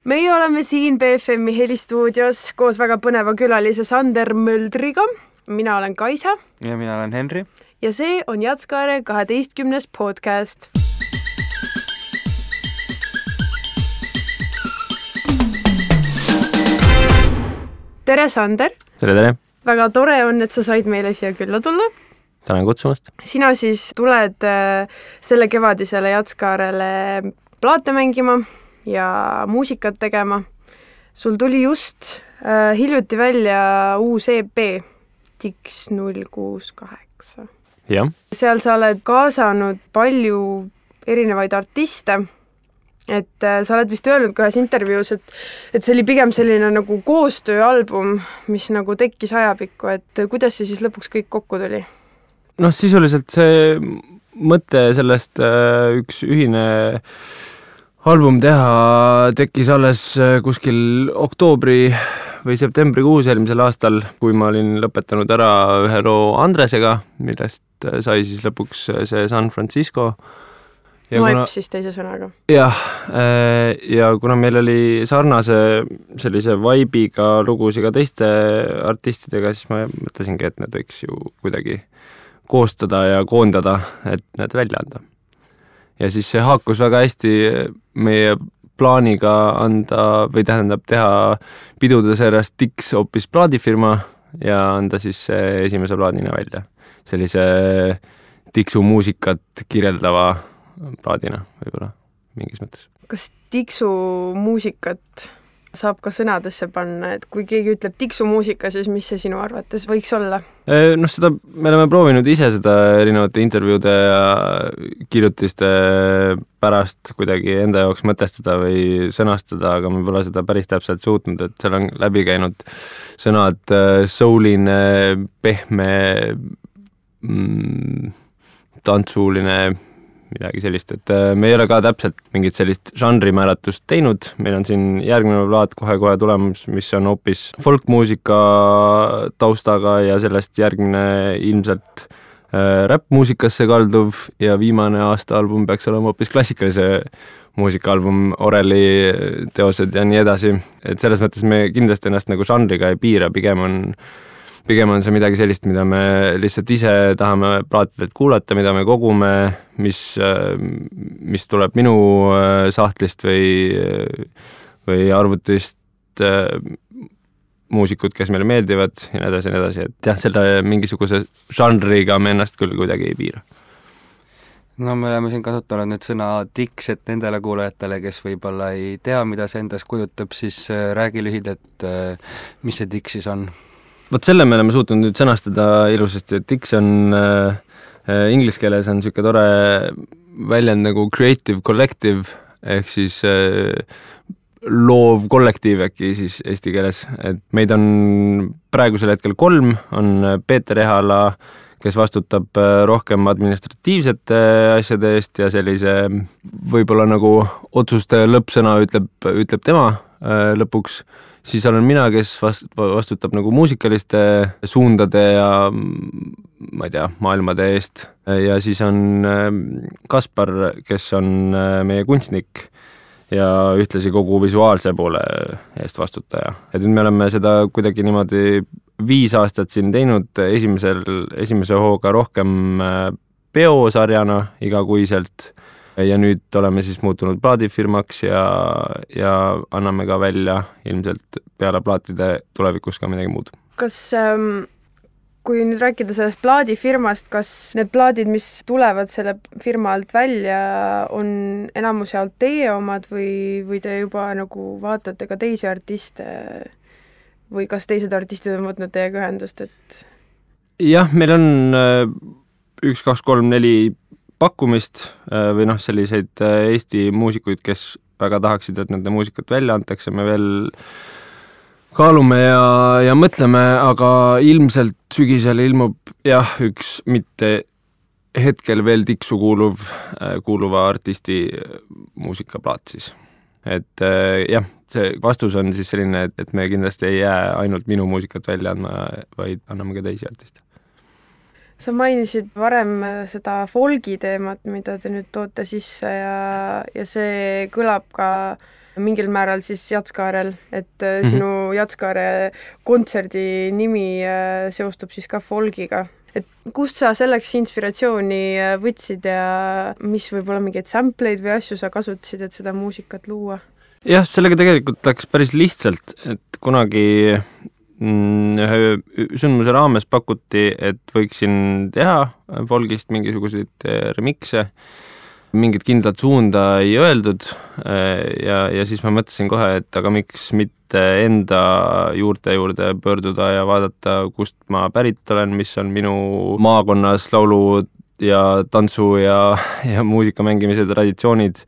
Meie oleme siin BFM-i helistuudios koos väga põneva külalise Sander Möldriga. Mina olen Kaisa. Ja mina olen Henri. Ja see on Jatskaare 12. podcast. Tere, Sander! Tere! Väga tore on, et sa said meile siia külla tulla. Tänan kutsumast. Sina siis tuled selle kevadisele Jatskaarele plaate mängima ja muusikat tegema. Sul tuli just hiljuti välja uus EP, Dix 068. Jah. Seal sa oled kaasanud palju erinevaid artiste. Et sa oled vist öelnud ühes intervjuus, et see oli pigem selline nagu koostööalbum, mis nagu tekkis ajapikku, et kuidas see siis lõpuks kõik kokku tuli? No sisuliselt see mõte sellest üks ühine album teha tekkis alles kuskil oktoobri või septembrikuus eelmisel aastal, kui ma olin lõpetanud ära ühe loo Andresega, millest sai siis lõpuks see San Francisco. Noip siis teise sõnaga. Jah, ja kuna meil oli sarnase sellise vibe'iga lugusi ka teiste artistidega, siis ma mõtlesingi, et need võiks ju kuidagi koostada ja koondada, et need välja anda. Ja siis see haakus väga hästi meie plaaniga anda või tähendab teha pidude seerast Dix hoopis plaadifirma ja anda siis esimese plaadina välja. Sellise Dixu muusikat kirjeldava plaadina võib-olla mingis mõttes. Kas Dixu muusikat saab ka sõnadesse panna, et kui keegi ütleb Dixu muusika, siis mis see sinu arvates võiks olla? No seda me oleme proovinud ise seda erinevate intervjuude ja kirjutiste pärast kuidagi enda jaoks mõtestada või sõnastada, aga me pole seda päris täpselt suutnud, et seal on läbi käinud sõnad souline, pehme, tantsuuline, midagi sellist, et me ei ole ka täpselt mingit sellist žanrimääratust teinud, meil on siin järgmine plaat kohe tulemus, mis on hoopis folkmuusika taustaga ja sellest järgmine ilmselt räppmuusikasse kalduv ja viimane aasta album peaks olema hoopis klassikalise muusikaalbum, Oreli teosed ja nii edasi, et selles mõttes me kindlasti ennast nagu žanriga ei piira, pigem on see midagi sellist, mida me lihtsalt ise tahame plaatidelt kuulata, mida me kogume, mis tuleb minu sahtlist või arvutist muusikud, kes meile meeldivad ja nii edasi, et jah, selle mingisuguse žanriga me ennast küll kuidagi ei piira. No me oleme siin kasutanud nüüd sõna Dix, et nendele kuulajatele, kes võib-olla ei tea, mida see endas kujutab, siis räägi lühidalt, mis see Dix siis on? Vot selle me oleme suutnud nüüd sõnastada ilusasti, et Dix on inglise keeles on niisugune tore väljend nagu creative collective ehk siis loov kollektiiv äkki siis eesti keeles, et meid on praegusel hetkel 3, on Peeter Ehala, kes vastutab rohkem administratiivsete asjade eest ja sellise võib-olla nagu otsuste lõppsõna ütleb tema lõpuks. Siis olen mina, kes vastutab nagu muusikaliste suundade ja ma ei tea, maailmade eest. Ja siis on Kaspar, kes on meie kunstnik ja ühtlasi kogu visuaalse poole eest vastutaja. Et nüüd me oleme seda kuidagi niimoodi 5 aastat siin teinud, esimese hooga rohkem peosarjana igakuiselt. Ja nüüd oleme siis muutunud plaadifirmaks ja anname ka välja ilmselt peale plaatide tulevikus ka midagi muud. Kas, kui nüüd rääkida sellest plaadifirmast, kas need plaadid, mis tulevad selle firma alt välja, on enamus jaolt teie omad või te juba nagu vaatate ka teisi artiste või kas teised artistid on võtnud teiega ühendust? Et... Jah, meil on 1, 2, 3, 4 pakkumist või selliseid Eesti muusikuid, kes väga tahaksid, et nende muusikat välja antakse, me veel kaalume ja mõtleme, aga ilmselt sügisel ilmub üks mitte hetkel veel Dixu kuuluva artisti muusikaplaat siis. Et see vastus on siis selline, et me kindlasti ei jää ainult minu muusikat välja andma, vaid anname ka teisi artiste. Sa mainisid varem seda folgi teemat, mida te nüüd toote sisse ja see kõlab ka mingil määral siis Jatskaarel, et sinu Jatskaare kontserdi nimi seostub siis ka folgiga. Et kust sa selleks inspiratsiooni võtsid ja mis võib-olla mingeid sampleid või asju sa kasutasid, et seda muusikat luua? Jah, sellega tegelikult läks päris lihtsalt, et kunagi ühe sündmuse raames pakuti, et võiksin teha folgist mingisuguseid remikse, mingit kindlat suunda ei öeldud ja siis ma mõtlesin kohe, et aga miks mitte enda juurde pöörduda ja vaadata, kust ma pärit olen, mis on minu maakonnas laulu ja tantsu ja muusika mängimise traditsioonid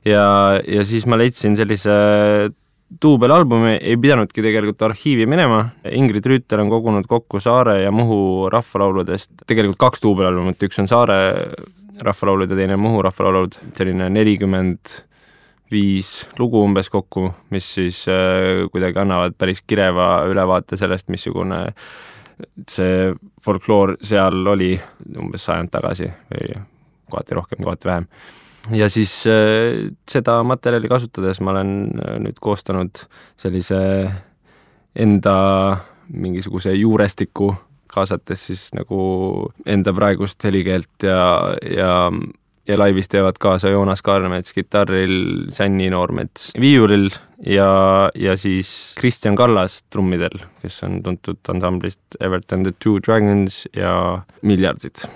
ja siis ma leidsin sellise duubelalbumi, ei pidanudki tegelikult arhiivi minema. Ingrid Rüütel on kogunud kokku Saare ja Muhu rahvalauludest tegelikult 2 duubelalbumit, üks on Saare rahvalaulud ja teine Muhu rahvalaulud, selline 45 lugu umbes kokku, mis siis kuidagi annavad päris kireva ülevaate sellest, missugune see folkloor seal oli umbes 100 tagasi või kohati rohkem, kohati vähem. Ja siis seda materjali kasutades ma olen nüüd koostanud sellise enda mingisuguse juurestiku, kaasates siis nagu enda praegust helikeelt ja laivis teevad kaasa Joonas Kaarmets kitarril, Sänni Noormets viiulil ja siis Kristjan Kallas trummidel, kes on tuntud ansamblist Evert and the Two Dragons ja Miljardid.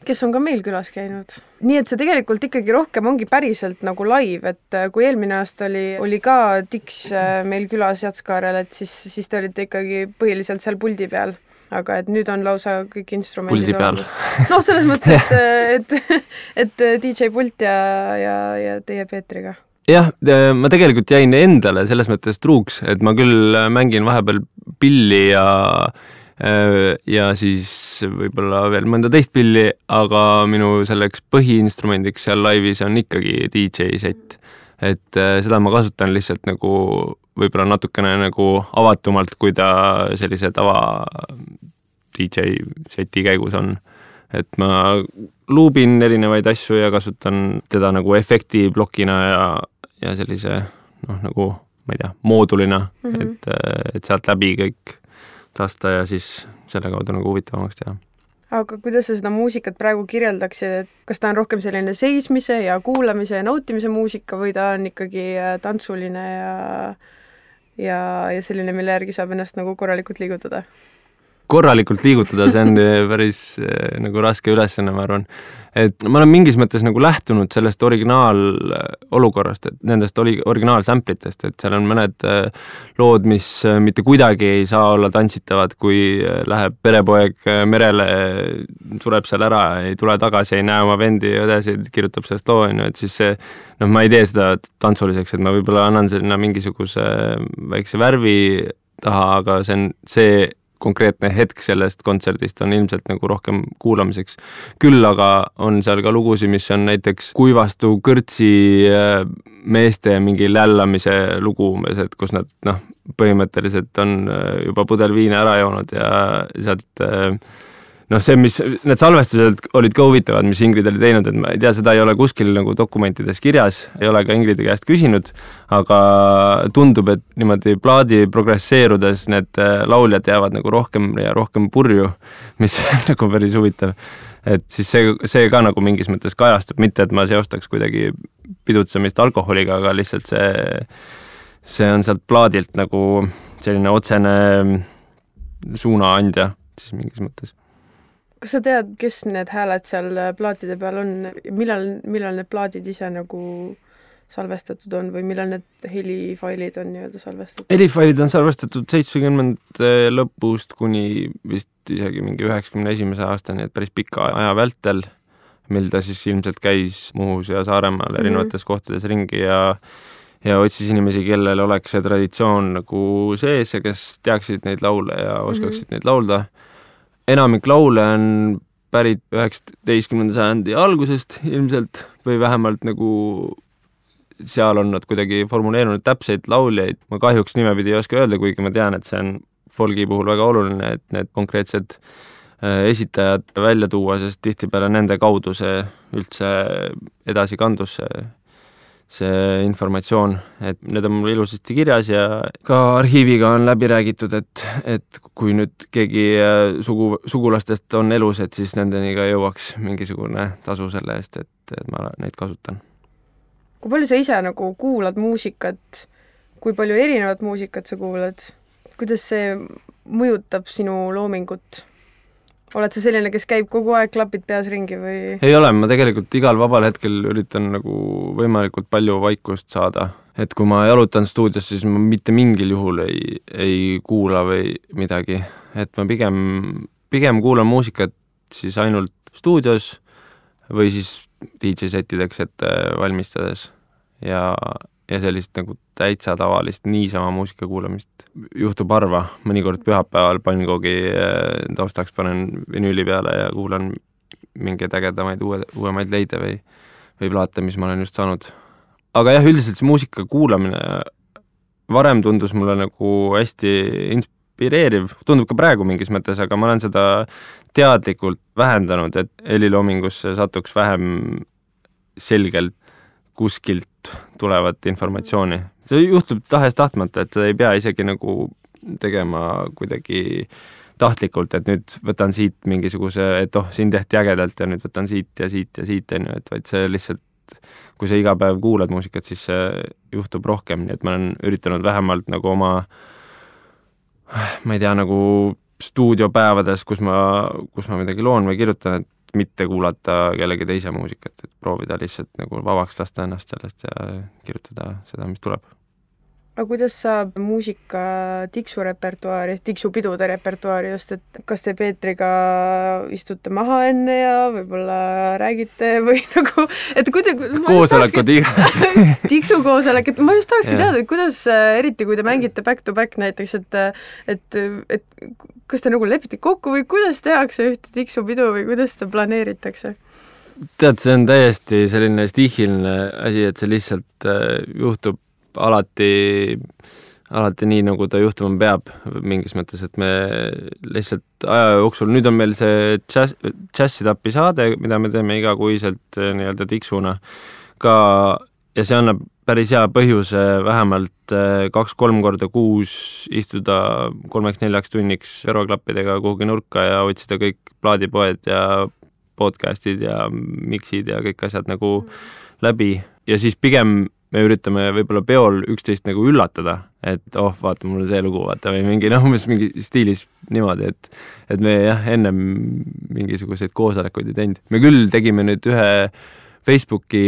Kes on ka meil külas käinud. Nii et see tegelikult ikkagi rohkem ongi päriselt nagu live, et kui eelmine aasta oli ka Dix meil külas Jatskaarel, et siis te olite ikkagi põhiliselt seal puldi peal. Aga et nüüd on lausa kõik instrumendid. Puldi peal. No selles mõttes, et DJ Pult ja teie Peetriga. Jah, ma tegelikult jäin endale selles mõttes truuks, et ma küll mängin vahepeal pilli ja siis võib-olla veel mõnda teist pilli, aga minu selleks põhiinstrumendiks seal laivis on ikkagi DJ set. Et seda ma kasutan lihtsalt nagu võib-olla natukene nagu avatumalt, kui ta sellise tava DJ seti käigus on. Et ma luubin erinevaid asju ja kasutan teda nagu efektiblokina ja sellise nagu, ma ei tea, moodulina, et sealt läbi kõik lasta ja siis selle kaudu nagu huvitavamaks teha. Aga kuidas sa seda muusikat praegu kirjeldaksid, et kas ta on rohkem selline seismise ja kuulamise ja nautimise muusika või ta on ikkagi tantsuline ja selline, mille järgi saab ennast nagu korralikult liigutada? Korralikult liigutada, see on päris nagu raske ülesanne, ma arvan. Et ma olen mingis mõttes nagu lähtunud sellest originaalolukorrast, et nendest originaalsamplitest, et seal on mõned lood, mis mitte kuidagi ei saa olla tantsitavad, kui läheb perepoeg merele, sureb seal ära, ei tule tagasi, ei näe oma vendi ja õdesid, kirjutab sellest loo, et siis see, ma ei tee seda tantsuliseks, et ma võib-olla annan sinna mingisuguse väikse värvi taha, aga see konkreetne hetk sellest kontserdist on ilmselt nagu rohkem kuulamiseks. Küll aga on seal ka lugusid, mis on näiteks Kuivastu kõrtsi meeste mingi lällamise lugu umbes, et kus nad põhimõtteliselt on juba pudel viina ära joonud ja sealt see, mis need salvestused olid ka huvitavad, mis Ingrid oli teinud, et ma ei tea, seda ei ole kuskil nagu dokumentides kirjas, ei ole ka Ingridi käest küsinud, aga tundub, et niimoodi plaadi progresseerudes need lauljad jäävad nagu rohkem ja rohkem purju, mis on nagu päris huvitav. Et siis see ka nagu mingis mõttes kajastub, mitte et ma seostaks kuidagi pidutsemist alkoholiga, aga lihtsalt see on sealt plaadilt nagu selline otsene suunaandja siis mingis mõttes. Kas sa tead, kes need hääled seal plaatide peal on? Millal need plaadid ise nagu salvestatud on või millal need helifailid on nii-öelda salvestatud? Helifailid on salvestatud 70 lõpust kuni vist isegi mingi 91. aastani, et päris pika aja vältel, mil ta siis ilmselt käis Muhus ja Saaremaal erinevates kohtades ringi ja otsis inimesi, kellel oleks see traditsioon nagu sees ja kes teaksid neid laule ja oskaksid neid laulda. Enamik laule on pärit 19. sajandi algusest ilmselt või vähemalt nagu seal on nad kuidagi formuleerunud täpseid lauljaid. Ma kahjuks nimepidi ei oska öelda, kuigi ma tean, et see on folgi puhul väga oluline, et need konkreetsed esitajad välja tuua, sest tihtipeale nende kaudu see üldse edasi kandus see informatsioon, et need on mul ilusasti kirjas ja ka arhiiviga on läbi räägitud, et kui nüüd keegi sugulastest on elus, et siis nendeni ka jõuaks mingisugune tasu selle eest, et ma neid kasutan. Kui palju sa ise nagu kuulad muusikat, kui palju erinevat muusikat sa kuulad, kuidas see mõjutab sinu loomingut? Oled sa selline, kes käib kogu aeg klapid peas ringi või? Ei ole, ma tegelikult igal vabal hetkel üritan nagu võimalikult palju vaikust saada. Et kui ma jalutan stuudios, siis ma mitte mingil juhul ei kuula või midagi. Et ma pigem kuulan muusikat siis ainult stuudios või siis DJ-settideks ette valmistades ja sellist nagu täitsa tavalist niisama muusika kuulamist juhtub harva. Mõnikord pühapäeval Pannkoogi taustaks panen vinüüli peale ja kuulan mingeid ägedamaid uuemaid leide või plaate, mis ma olen just saanud. Aga jah, üldiselt see muusika kuulamine varem tundus mulle nagu hästi inspireeriv. Tundub ka praegu mingis mõttes, aga ma olen seda teadlikult vähendanud, et heliloomingusse satuks vähem selgelt kuskilt tulevat informatsiooni. See juhtub tahes-tahtmata, et sa ei pea isegi nagu tegema kuidagi tahtlikult, et nüüd võtan siit mingisuguse, et siin tehti ägedalt ja nüüd võtan siit ja siit ja siit, et vaid see lihtsalt, kui sa iga päev kuulad muusikat, siis see juhtub rohkem, nii et ma olen üritanud vähemalt nagu oma, ma ei tea, nagu stuudiopäevades, kus ma midagi loon või kirjutan, et mitte kuulata kellegi teise muusikat, et proovida lihtsalt nagu vabaks lasta ennast sellest ja kirjutada seda, mis tuleb. Aga kuidas saab muusika tiksurepertuaari, tiksupidude repertuaari just, et kas te Peetriga istute maha enne ja võib-olla räägite või nagu, et koosolekud tiksukoosolek, et ma just tahakski teada, et kuidas, eriti kui te mängite back to back näiteks, et kas te nagu lepite kokku või kuidas tehakse ühte tiksupidu või kuidas ta planeeritakse? Tead, see on täiesti selline stihiline asi, et see lihtsalt juhtub alati nii, nagu ta juhtuma peab mingis mõttes, et me lihtsalt aja jooksul, nüüd on meil see džässitapi saade, mida me teeme igakuiselt nii-öelda tiksuna ka ja see annab päris hea põhjuse vähemalt 2-3 korda kuus istuda 3-4 tunniks veroklappidega kuhugi nurka ja otsida kõik plaadipoed ja podcastid ja mixid ja kõik asjad nagu läbi ja siis pigem me üritame võib-olla peol üksteist nagu üllatada, et vaata, mul on see lugu, vaata, või mingi mingi stiilis niimoodi, et me jah, ennem mingisuguseid koosolekuid ei teinud. Me küll tegime nüüd ühe Facebooki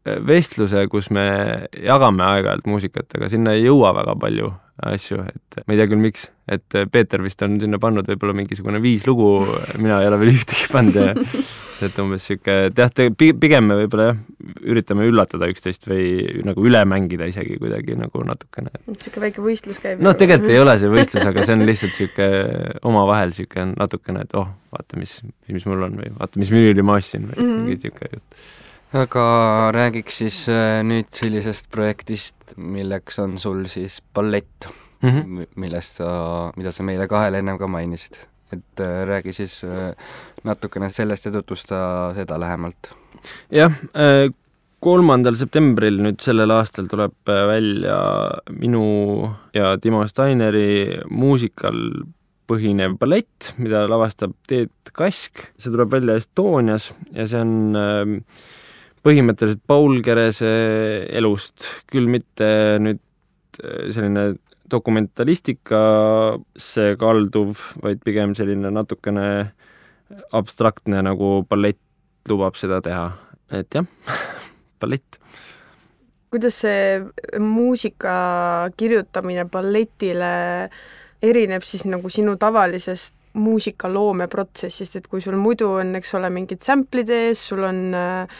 vestluse, kus me jagame aeg-ajalt muusikat, aga sinna ei jõua väga palju asju, et ma ei tea küll miks, et Peeter vist on sinna pannud võib-olla mingisugune 5 lugu, mina ei ole veel ühtegi pannud ja et umbes siuke, pigem me võib-olla jah, üritame üllatada üksteist või nagu üle mängida isegi kuidagi nagu natukene. Siuke väike võistlus käib. No tegelikult ei ole see võistlus, aga see on lihtsalt siuke omavahel siuke natukene, et vaata, mis mul on või vaata, mis vinüüli ma ostsin või mingi siuke jutt. Aga räägiks siis nüüd sellisest projektist, milleks on sul siis ballett, mida sa meile kahele ennem ka mainisid. Et räägi siis natukene sellest ja tutvusta seda lähemalt. Jah, 3. septembril nüüd sellel aastal tuleb välja minu ja Timo Steineri muusikal põhinev ballett, mida lavastab Teet Kask. See tuleb välja Estonias ja see on põhimõtteliselt Paul Kerese elust, küll mitte nüüd selline dokumentalistika kalduv, vaid pigem selline natukene abstraktne, nagu ballett lubab seda teha. Et jah, ballett. Kuidas see muusika kirjutamine balletile erineb siis nagu sinu tavalisest muusikaloomeprotsessist, et kui sul muidu on, eks ole, mingid samplid ees, sul on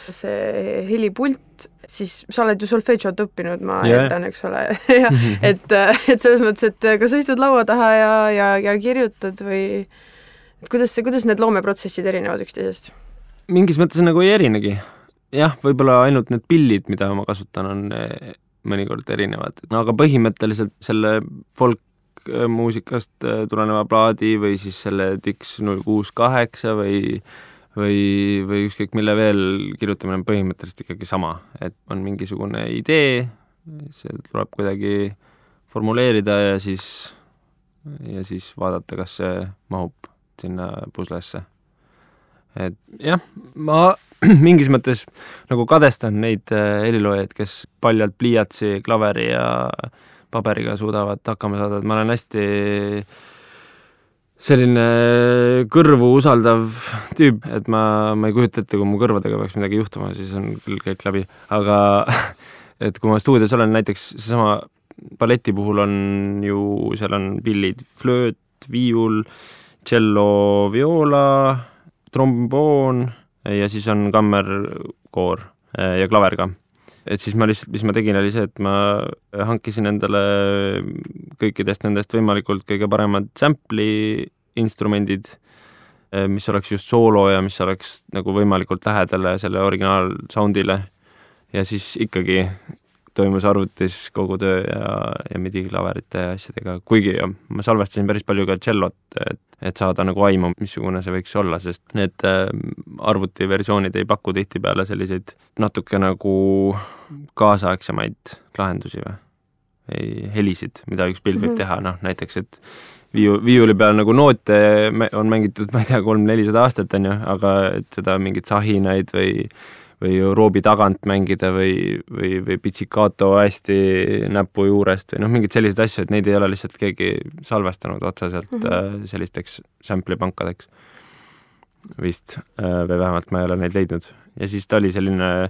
see helipult, siis sa oled ju solfedžot õppinud, ma eeldan, eks ole. Ja, et selles mõttes, et kas sa istud laua taha ja kirjutad või kuidas need loomeprotsessid erinevad üksteisest? Mingis mõttes nagu ei erinegi. Jah, võib-olla ainult need pillid, mida ma kasutan, on mõnikord erinevad. Aga põhimõtteliselt selle folk muusikast tuleneva plaadi või siis selle Dix 068 või või ükskõik mille veel kirjutamine on põhimõtteliselt ikkagi sama, et on mingisugune idee, see tuleb kuidagi formuleerida ja siis vaadata, kas see mahub sinna puslesse. Et jah, ma mingis mõttes nagu kadestan neid heliloojaid, kes paljalt pliiatsi, klaveri ja paberiga suudavad hakkama saada, et ma olen hästi selline kõrvu usaldav tüüp, et ma ei kujuta ette, kui mu kõrvadega peaks midagi juhtuma, siis on küll kõik läbi, aga et kui ma stuudios olen, näiteks seesama balleti puhul on ju, seal on pillid, flööt, viiul, cello, viola, tromboon ja siis on kammerkoor ja klaver ka. Et siis ma lihtsalt, mis ma tegin, oli see, et ma hankisin endale kõikidest nendest võimalikult kõige paremad sample'i instrumendid, mis oleks just soolo ja mis oleks nagu võimalikult lähedale selle originaal soundile. Ja siis ikkagi toimus arvutis kogu töö ja midi-klaverite ja asjadega, kuigi ma salvestasin päris palju ka cellot, et saada nagu aimu, missugune see võiks olla, sest need arvutiversioonid ei paku tihtipeale selliseid natuke nagu kaasaegsemaid lahendusi või helisid, mida üks pild võib teha, noh näiteks, et viiuli peal nagu noote on mängitud, ma ei tea, 300-400 aastat on ju, aga et seda mingit sahinaid või roobi tagant mängida või pitsikato hästi näpu juurest või noh, mingid sellised asju, et neid ei ole lihtsalt keegi salvestanud otseselt sellisteks sample'ipankadeks vist, või vähemalt ma ei ole neid leidnud. Ja siis ta oli selline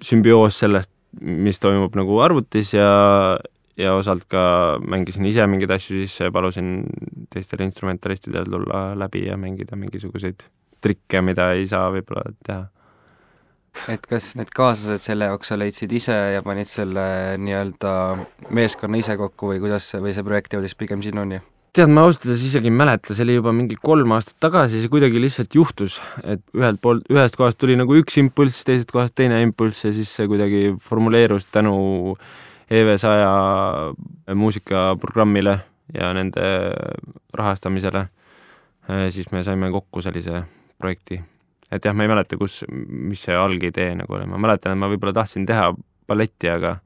sümbioos sellest, mis toimub nagu arvutis ja osalt ka mängisin ise mingeid asju sisse ja palusin teistele instrumentalistidele tulla läbi ja mängida mingisuguseid trikke, mida ei saa võib-olla teha. Et kas need kaaslased selle jaoks sa leidsid ise ja panid selle nii-öelda meeskonna ise kokku või kuidas või see projekt jõudis pigem sinuni? Tead, ma ausalt isegi ei mäleta, see oli juba mingi 3 aastat tagasi, see kuidagi lihtsalt juhtus, et ühest kohast tuli nagu üks impulss, teisest kohast teine impulss ja siis see kuidagi formuleerus tänu EV100 muusikaprogrammile ja nende rahastamisele. Siis me saime kokku sellise projekti. Et jah, ma ei mäleta, mis see algidee nagu oli. Ma mäletan, et ma võib-olla tahtsin teha balletti, aga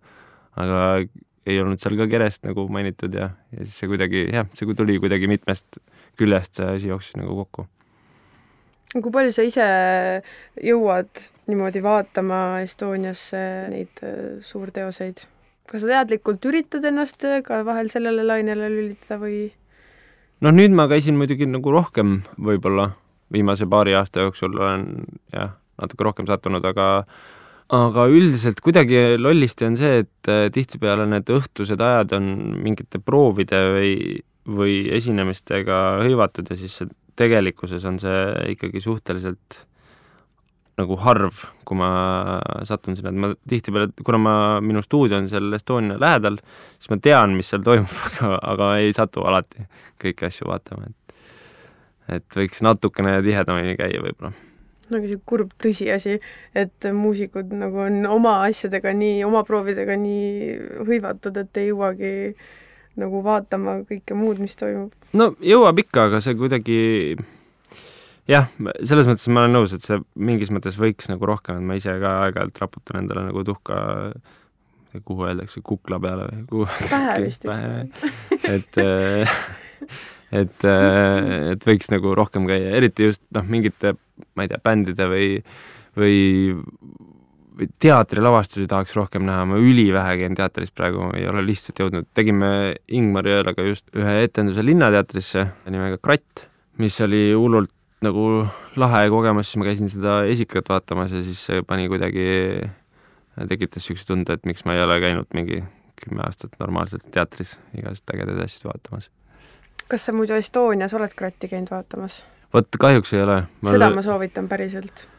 ei olnud seal ka kerest nagu mainitud ja siis see kuidagi, see tuli kuidagi mitmest küljest, see asi jooksis nagu kokku. Kui palju sa ise jõuad niimoodi vaatama Estoniasse neid suurteoseid? Kas sa teadlikult üritad ennast ka vahel sellele lainele lülitada või? No nüüd ma käisin muidugi nagu rohkem võib-olla viimase paari aasta jooksul olen natuke rohkem sattunud, aga üldiselt kuidagi lollisti on see, et tihtipeale need õhtused ajad on mingite proovide või esinemistega hõivatud ja siis tegelikkuses on see ikkagi suhteliselt nagu harv, kui ma satun sinna, et ma tihtipeale, kuna minu stuudio on seal Estonia lähedal, siis ma tean, mis seal toimub, aga ei satu alati kõiki asju vaatama, et võiks natukene tihedamini käia võib-olla. Nagu see kurb tõsiasi, et muusikud nagu on oma asjadega nii, oma proovidega nii hõivatud, et ei jõuagi nagu vaatama kõike muud, mis toimub. No jõuab ikka, aga see kuidagi selles mõttes ma olen nõus, et see mingis mõttes võiks nagu rohkem, et ma ise ka aeg-ajalt raputan endale nagu tuhka, kuhu öeldakse, kukla peale või pähe vist. Et võiks nagu rohkem käia, eriti just mingite, ma ei tea, bändide või teatrilavastusi tahaks rohkem näha, ma ülivähe käin teatris praegu, ei ole lihtsalt jõudnud. Tegime Ingmar Jõelaga just ühe etenduse Linnateatrisse nimega Kratt, mis oli hullult nagu lahe kogemus, siis ma käisin seda esikat vaatamas ja siis see pani kuidagi, tekitas sükse tunde, et miks ma ei ole käinud mingi 10 aastat normaalselt teatris igast ägedaid asju vaatamas. Kas sa muidu Estonias oled Kratti käinud vaatamas? Vot kahjuks ei ole. Seda ma soovitan päriselt.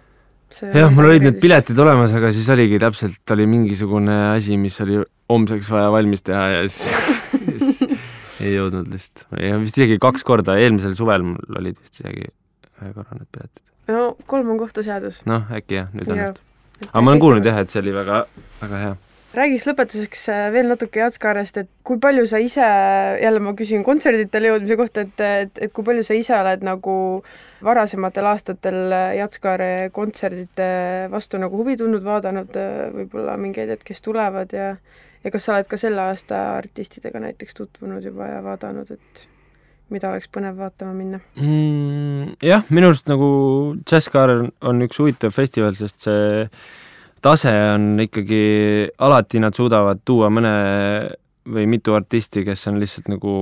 Mul olid need piletid olemas, aga siis oligi täpselt oli mingisugune asi, mis oli homseks vaja valmis teha ja siis ei jõudnud lihtsalt. Ja vist isegi 2 korda, eelmisel suvel mul olid vist isegi 1 korra need piletid. No 3 on kohtuseadus. Noh, äkki nüüd õnnest. Aga ma olen kuulnud et see oli väga, väga hea. Räägiks lõpetuseks veel natuke Jatskaarest, et kui palju sa ise, jälle ma küsin kontserditele jõudmise kohta, et kui palju sa ise oled nagu varasematel aastatel Jatskaare kontserdite vastu nagu huvi tundnud, vaadanud võib-olla mingeid kes tulevad ja kas sa oled ka selle aasta artistidega näiteks tutvunud juba ja vaadanud, et mida oleks põnev vaatama minna? Jah, minu arust nagu Jatskaar on üks huvitav festival, sest see tase on ikkagi, alati nad suudavad tuua mõne või mitu artisti, kes on lihtsalt nagu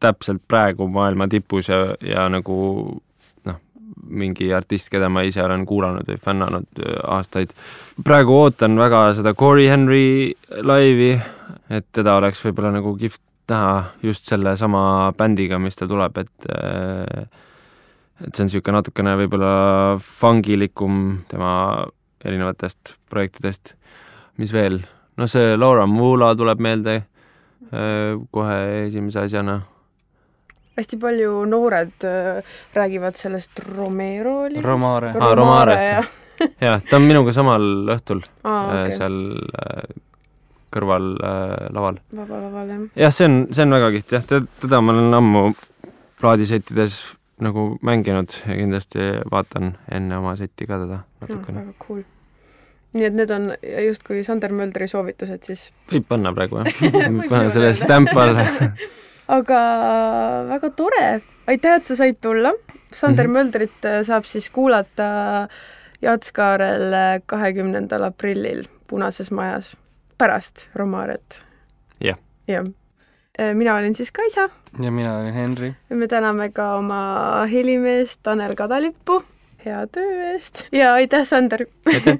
täpselt praegu maailma tipus ja nagu mingi artist, keda ma ise olen kuulanud või fännanud aastaid. Praegu ootan väga seda Corey Henry laivi, et teda oleks võib-olla nagu kihvt näha just selle sama bändiga, mis ta tuleb, et see on niisugune natukene võib-olla fangilikum tema erinevatest projektidest. Mis veel? No see Laura Mula tuleb meelde kohe esimese asjana. Hästi palju noored räägivad sellest Romero oli? Romarest. Jah, ta on minuga samal õhtul okay. Seal kõrval laval. Vaba laval, jah. Jah, see on väga kiht, jah. Teda ma olen ammu plaadisettides nagu mänginud ja kindlasti vaatan enne oma setti ka teda natukene. Väga cool. Nii et need on just kui Sander Möldri soovitused, siis... Võib panna praegu, jah. Võib panna selle stämpal. Aga väga tore. Aitäh, et sa said tulla. Sander Möldrit saab siis kuulata Jatskaarel 20. aprillil Punases majas pärast Romaret. Jah. Jah. Mina olin siis Kaisa. Ja mina olin Henri. Me täname ka oma helimeest Tanel Kadalippu hea töö eest. Ja aitäh, Sander! Aitäh!